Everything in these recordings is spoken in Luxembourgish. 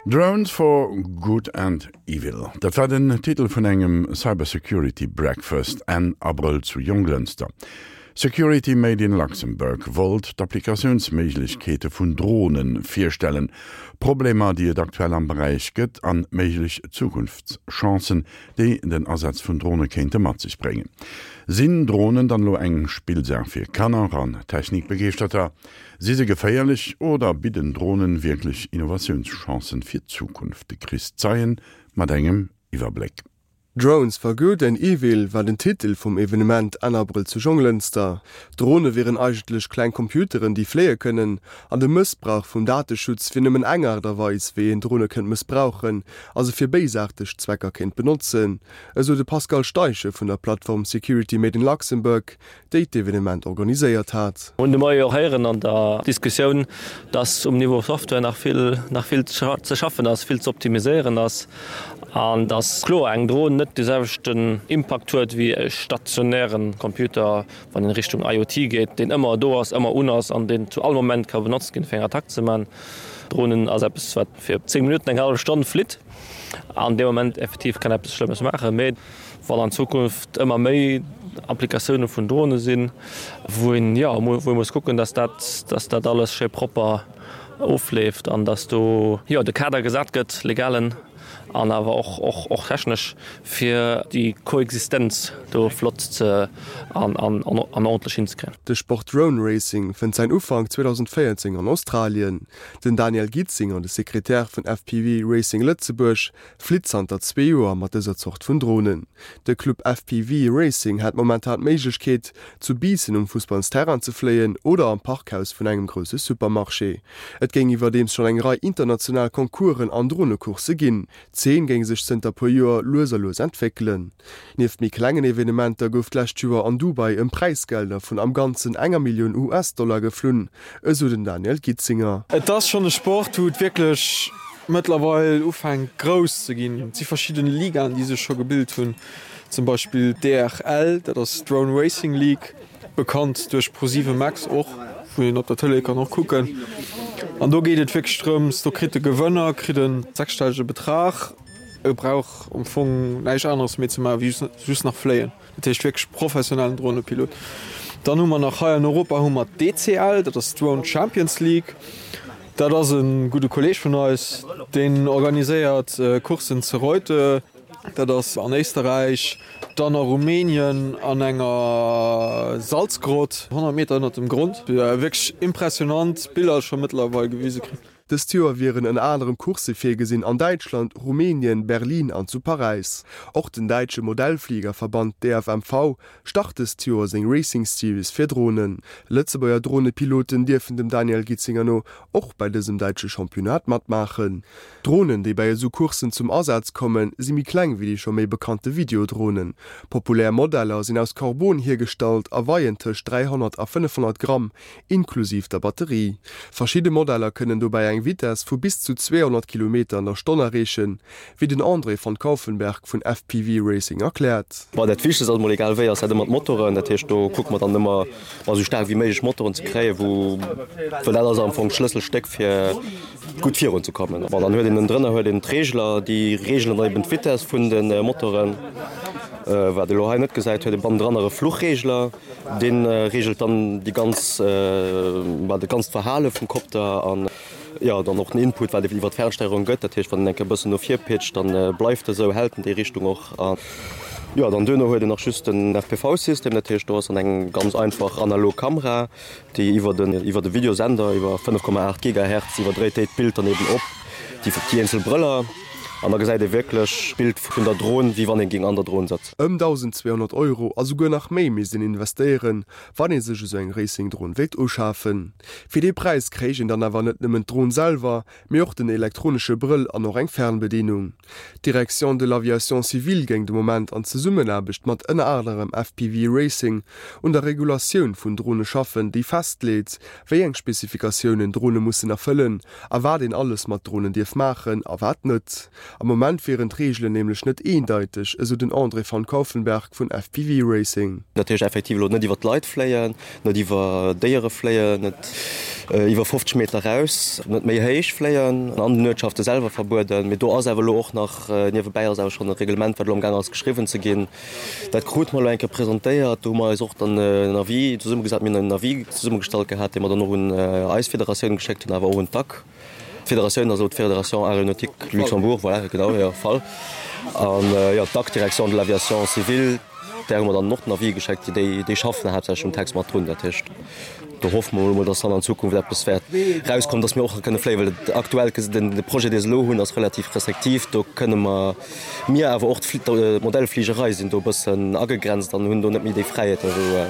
Drones for Good and Evil, dat war den Titel vun engem Cybersecurity Breakfast Enn Abrëll zu Jonglënster. Security Made in Luxembourg wollt d'Applikatiounsméiglechkeete vun Drone virstellen, Problemer déi et aktuell am Beräich gëtt an méiglech Zukunftschancen, déi den Asaz vun Drone kéinte mat sech bréngen. Sinn Dronen dann elo eng Spillsaach fir Kanner an Technikbegeeschterter? Si se geféierlech oder bidden Dronen wierklech Innovatiounschancen fir d'Zukunft? De Chris Zeien mat engem Iwwerbléck. Drones for good and evil war den Titel vum Evenement Enn Abrëll zu Jonglënster. Drone wieren eigentlech kleng Computeren, déi fléie kënnen, an de Mëssbrauch vum Dateschutz wier nëmmen eng Aart a Weis, wéi een Drone kënnt mëssbrauchen a se fir béisaarteg Zwecker kéint benotzen, esou de Pascal Steichen vun der Plattform Security Made in Luxembourg, déi d'Evenement organiséiert hat. Hunn de Moie och héieren an der Diskussioun, dass um Niveau Software nach vill, nach vill ze schaffen ass, vill ze optimiséieren ass an dass kloer eng Dron net de selwechten Impakt huet wéi e stationäre Computer, wann een Richtung IoT geet, deen ëmmer do ass, ëmmer un ass an deen zu all Moment ka benotzt ginn, fir eng Attack ze man. Dronen ass eppes, wat fir 10 Minutten, eng hallef Stonn flitt an dee Moment effektiv kann eppes Schlëmmes maachen. Mee wann an Zukunft ëmmer méi Applikatioune vun Drone sinn, wou een, jo, wou ee muss kucken, dass dat, dass dat alles schéi propper ofleeft an dass do, jo, de Kader gesat gëtt, legalen an awer och, och, och technesch, fir déi Koexistenz do flott ze an, an, an ordentlech hinzekréien. De Sport Drone Racing fënnt säin Ufank 2014 an Australien. Den Daniel Gitzinger, de Sekretär vun FPV Racing Lëtzebuerg, flitt zanter zwee Joer mat dëser Zort vun Dronen. De Club FPV Racing hätt momentan d'Méiglechkeet, zu Biissen um Fussballsterrain ze fléien oder am Parkhaus vun engem grousse Supermarché. Et géing iwwerdeems schonn eng Rei international Concoursen an Dronecoursse ginn. D'Zeen géing sech zënter puer Joer lues a lues entwéckelen. Nieft méi klengen Evenementer gouf d'lescht Joer an Dubai ëm Präisgelder vun am Ganzen enger Millioun US-Dollar geflunn, esou den Daniel Gitzinger. Et ass schonn e Sport, wou et wierklech mëttlerweil ufänkt grouss ze ginn. Et si verschidden Ligaen, déi sech scho gebilt hunn, zum Beispill d'DRL, dat ass d'Drone Racing League, bekannt duerch ProSieben Max och, wou een op der Tëlee kann och kucken. An do geet et wierklech drëms, do kritt de Gewënner kritt e sechsstellege Betrag, e brauch am Fong näischt aneres méi ze maachen, wéi just nach fléien. Dat heescht wierklech professionellen Dronepilot. Dann hu mer nach hei an Europa hu mer d'DCL, dat ass d'Drone Champions League. Dat ass e gudde Kolleeg vun eis, deen organiséiert Courssen zu Reutte, dat ass an Éisterräich, dann a Rumänien an enger Salzgrott 100 Meter ënnert dem Grond. Wierklech impressionant Biller scho mëttlerweil gewise kritt. Dëst Joer wieren ënner anerem Coursse virgesinn an Däitschland, Rumänien, Berlin an zu Paräis. Och den däitsche Modellfliegerverband DFMV start dëst Joer seng Racing Series fir Dronen. Lëtzebuerger Dronepiloten dierfen dem Daniel Gitzinger no och bei dësem däitsche Championnat matmaachen. D'Dronen, déi bei esou Courssen zum Asaz kommen, si méi kleng wéi déi scho méi bekannte Videodronen. Populär Modeller sinn aus Karbon hiergestallt a weien tëscht 300 a 500 Gramm, inklusiv der Batterie. Verschidde Modeller kënnen dobäi eng Vitess vu bis zu 200 Kilometer an der Stonn erreechen, wéi den André van Kauffenberg vun FPV Racing erkläert. Bon, dat Wichtegst ass emol, egal wéi, ass dat ëmmer d'Motoren. Dat heescht, do kucke mer dann ëmmer, ma esou staark wéi méiglech Motoren ze kréien, wou, well dat ass am Fong d'Schlësselstéck fir gutt virun ze kommen. Bon, dann huet een ënnendrënner huet een d'Reegler, déi reegelen dann eben d'Vitess vun de Motoren. Wat ee lo hei net gesäit, huet ee bannendran nach e Fluchreegler. Dee reegelt dann déi ganz, ma dat ganzt Verhale vum Kopter an jo dann och den Input, wat iwwer d'Fernsteierung gëtt. Dat heescht, wann en eng Kéier e bëssen no vir pitcht, dann bleift e sou, hält en déi Richtung och. An jo, dann duerno huet een nach just den FPV-System, dat heescht, do ass dann eng ganz einfach analog Kamera, déi iwwer den iwwer de Videosender iwwer 5,8 Gigahertz iwwerdréit déi d'Bild dann eben op déi déi eenzel Brëller an da gesäit ee wierklech d'Bild vun der Dron, wéi wann ee géing an der Dron sëtzen. Ëm 1.200 Euro a souguer nach méi misst een investéieren, wann ee sech esou eng Racing-Dron wéilt uschafen. Fir dee Präis kréich een dann awer net nëmmen d'Dron selwer, mee och den elektronesche Brëll an och eng Fernbedienung. D'Direction de l'Aviation civile géing de Moment an Zesummenaarbecht mat ënner anerem FPV Racing un der Regulatioun vun Drone schaffen, déi festleet, wéi eng Spezifikatiounen Drone mussen erfëllen a wat een alles mat Dronen dierf maachen a wat net. Am Moment wieren d'Reegelen nämlech net eendeiteg, esou den André van Kauffenberg vun FPV Racing. Dat heescht effektiv elo net iwwer d'Leit fléien, net iwwer Déiere fléien, net iwwer 50 Meter raus, net méi héich fléien, an den Uertschafte selwer verbueden. Mee do ass awer elo och nach, niewebäi ass awer schonn e Reglement, wat elo amgaang ass geschriwwen ze ginn. Dat krute mer elo eng Kéier presentéiert. Do hu mer eis och dann en Avis zesummegesat, mir hunn en Avis zesummegestallt gehat, dee mer dann och un eis Federatioun geschéckt hunn, awer och un d'AC. D'Federatioun ass elo d'Fédération Aéronautique Luxembourg, voilà, genau, jo, FAL. An, jo, d'AC, Direction de l'Aviation civile, där hu mer dann och den Avis geschéckt. Déi, déi schaffen haaptsächlech um Text mat drun. Dat heescht, do hoffe mer elo mol, dass dann an Zukunft eppes wäert erauskommen, dass mir och kënne fléien, well et aktuell, den, de Projet, dee se elo hunn, ass relativ restriktiv. Do kënne mer, mir awer och d'Modellfligerei sinn do e bëssen agegrenzt an hunn do net méi déi Fräiheeten, wou,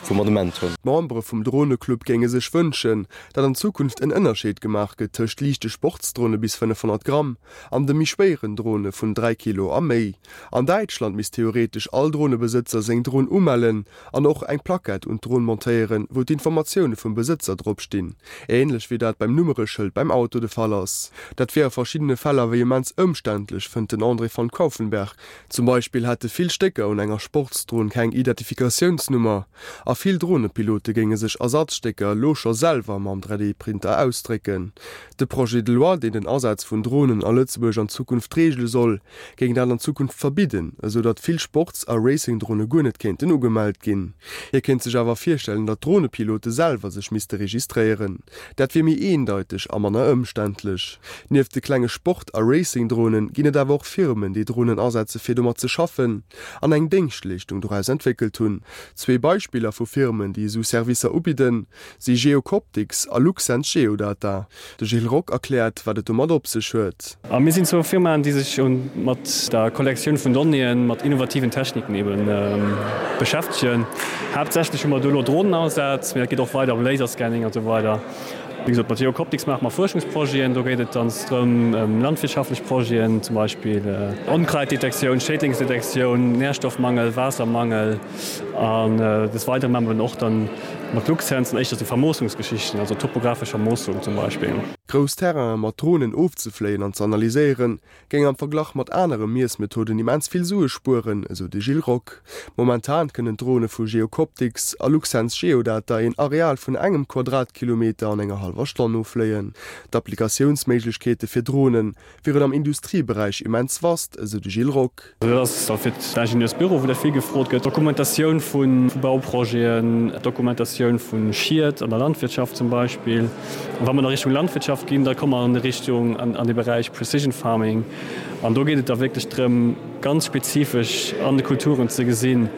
wou mer de Moment hunn. D'Membere vum Droneclub géinge sech wënschen, datt an Zukunft en Ënnerscheed gemaach gëtt tëscht liichte Sportsdrone bis 500 Gramm an de méi schwéieren Drone vun 3 Kilo a méi. An Däitschland misst theoretesch all Dronebesëtzer seng Dron umellen an och eng Plackett un d'Dron montéieren, wou d'Informatioune vum Besëtzer drop stinn, änlech wéi dat beim Nummereschëld beim Auto de Fall ass. Dat wier a verschiddene Fäll awer immens ëmständlech, fënnt den André van Kauffenberg. Zum Beispill hätte vill Stécker un enger Sportsdron keng Identifikatiounsnummer. A vill Dronepilote géinge sech Ersatzstécker elo scho selwer mam 3D-Printer ausdrécken. De Projet de loi, deen den Asaz vun Dronen a Lëtzebuerg an Zukunft reegele soll, géing dat an Zukunft verbidden, esou datt vill Sports a Racing-Drone guer net kéinten ugemellt ginn. Hie kéint sech awer virstellen, datt d'Dronepilote selwer sech misste registréieren. Dat wier méi eendeiteg a manner ëmständlech. Nieft de klenge Sport a Racing-Dronen ginn et awer och Firmen, déi Dronen asetze fir domat ze schaffen. An eng Déngschtleeschtung doraus entwéckelt hunn. Zwee Beispiller vu Firmen, déi esou Servicer ubidden, si Geocoptics a Luxens Geodata. De Gilles Rock erkläert, wat et domat op sech huet. A mir sinn zwou Firmaen, déi sech mat der Kollektioun vun Donnéeën mat innovativen Techniken eben beschäftegen. Haaptsächlech hu mer do elo Dronenausaz, mee dat geet och weider ëm Laserscanning an esou weider. Wéi gesot, mat Geocoptics maache mer Fuerschungsprojeten. Do geet et dann drëm, ëm landwirtschaftlech Projeten, zum Beispill Onkraitdetektioun, Schädlingsdetektioun, Nährstoffmangel, Waassermangel. An des Weidere maache mer dann och dann mat Luxsens dann éischter sou Vermoossungsgeschichten, also topographesch Vermoossung zum Beispill. Grouss Terrainen mat Dronen ofzefléien an ze analyséieren, géing am Verglach mat anere Miessmethoden immens vill Sue spueren, esou de Gilles Rock. Momentan kënnen d'Drone vu Geocoptics a Luxsens Geodata een Areal vun engem Quadratkilometer an enger hallwer Stonn offléien. D'Applikatiounsméiglechkeete fir Drone wieren am Industrieberäich immens vast, esou de Gilles Rock. Dat ass da fir d'Ingenieursbüro, wou dat vill gefrot gëtt, Dokumentatioun vu Bauprojeten, Dokumentatioun vu Schied an der Landwirtschaft zum Beispill. A wa mer da Richtung Landwirtschaft ginn, da komme mer an déi Richtung, an de Beräich Precision Farming. An do geet et da wierklech drëm, ganz spezifesch an de Kulturen ze gesinn,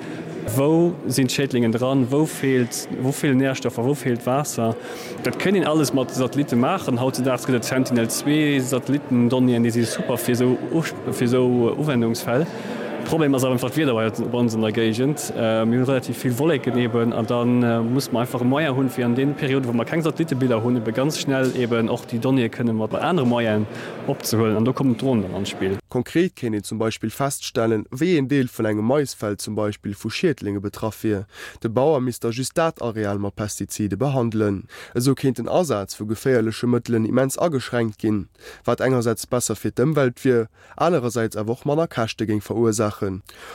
wou sinn d'Schädlingen dran, wou feelt, wou feelen Nährstoffer, wou feelt Waasser. Dat kéint een alles mat Satellitte maachen. Hautzedaags gëtt et Sentinel 2 Satellitten-Donnéeën, déi si super fir esou fir esou Uwendungsfäll. Problem ass awer einfach d'Wieder bei ons an der Géigend. Mir hunn relativ vill Wolleken eben an da musse mer einfach e Moyen hunn, fir an deene Perioden, wou mer keng Satellitebiller hunn, ebe ganz schnell eben och déi Donnéeë kënne mat anere Moyenen opzehuelen. An do kommen d'Dronen dann an d'Spill. Konkret kéint een zum Beispill feststellen, wéi een Deel vun engem Maisfeld zum Beispill vu Schiedlinge betraff wier. De Bauer misst da just dat Areal mat Pestizide behandelen. Esou kéint den Asaz vu geféierleche Mëttelen immens ageschränkt ginn, wat engersäits besser fir d'Ëmwelt wier, anerersäits awer och manner Käschte géing verursaachen.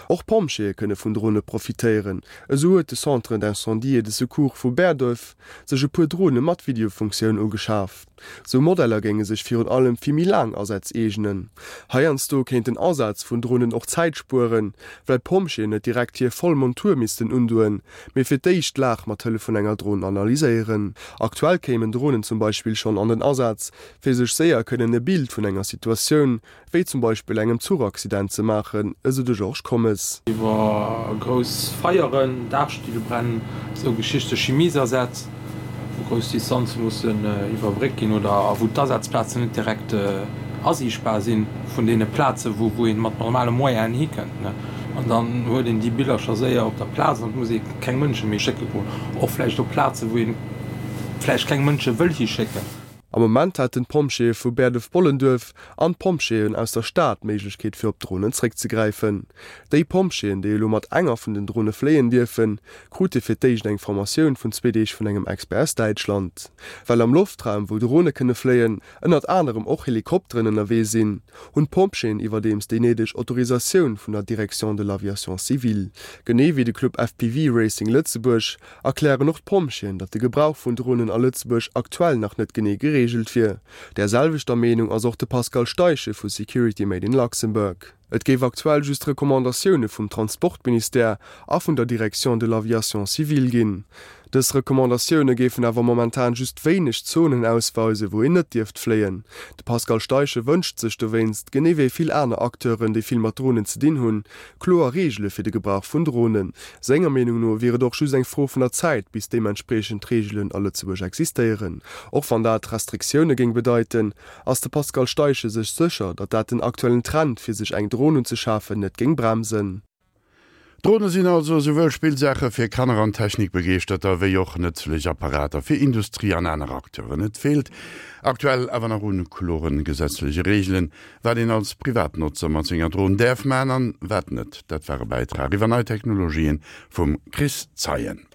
Och Pompjeeë kënne vun Drone profitéieren. Esou huet de Centre d'incendie et de secours vu Bäerduerf sech e puer Drone mat Videofunktioun ugeschaf. Sou Modeller géinge sech virun allem fir méi laang Asätz eegnen. Heiansdo kéint den Asaz vun Dronen och Zäit spueren, well d'Pompjeeën net direkt hir voll Montur missten undoen, mee fir d'éischt d'Lag mat Hëllef vun enger Dron analyséieren. Aktuell kéimen Dronen zum Beispill schonn an den Asaz, fir sech séier kënnen e Bild vun enger Situatioun, wéi zum Beispill engem Zuchaccident ze maachen, esou de Georges Commes. Iwwer grouss Feieren, Daachstilbränn, esou Geschichte, Chimiesasätz, wou grouss Distanze mussen iwwerbréckt ginn oder a wou d'Asazplazen net direkt asiichtbar si vun deene Plaze wou ee mat normale Moyenen hikënnt. An dann huet een déi Billercher séier op der Plaz an et muss ee keng Mënsche méi schécke goen, och vläicht op Plaze wou ee vläicht keng Mënsche wëll hischécken. Am Moment hätten d'Pompjeeë vu Bäerdef-Bollenduerf an d'Pompjeeën aus der Stad d'Méiglechkeet fir op Dronen zréckzegräifen. Déi Pompjeeën, déi elo mat enger vun den Drone fléien dierfen, krute fir d'éischt eng Formatioun vun zwee Deeg vun engem Expert aus Däitschland. Well am Loftraum, wou Drone kënne fléien, ënnert anerem och Helikopteren ënnerwee sinn, hunn d'Pompjeeën iwwerdeems déi néideg Autorisatioun vun der Direction de l'aviation civile. Genee wéi de Club FPV Racing Lëtzebuerg erklären och d'Pompjeeën, datt de Gebrauch vun Dronen a Lëtzebuerg aktuell nach net genee gereegelt wier. Där selwechter Meenung ass och de Pascal Steichen vu Security Made in Luxembourg. Et géif aktuell just Recommandatioune vum Transportministère a vun der Direction de l'aviation civile ginn. Dës Recommandatioune géifen awer momentan just wéineg Zonen ausweisen, wou een net dierft fléien. De Pascal Steichen wënscht sech dowéinst, genee wéi vill aner Acteuren, déi vill mat Dronen ze dinn hunn, Kloer Reegele fir de Gebrauch vun Dronen. Senger Meenung no wier et och just eng Fro vun der Zäit, bis deementspriechend Reegelen a Lëtzebuerg existéieren. Och wann dat Restriktioune géing bedeiten, ass de Pascal Steichen sech sécher, datt dat den aktuellen Trend, fir sech eng Dron unzeschafen, net géing bremsen. Drone sinn also esouwuel Spillsaache fir Kanner an Technikbegeeschterter, wéi och nëtzlech Apparater fir Industrie an aner Acteuren. Et feelt aktuell awer nach un kloren gesetzleche Reegelen, Wat een als Privatnotzer mat senger Dron däerf man an wat net, dat war e Bäitrag iwwer nei Technologien vum Chris Zeien.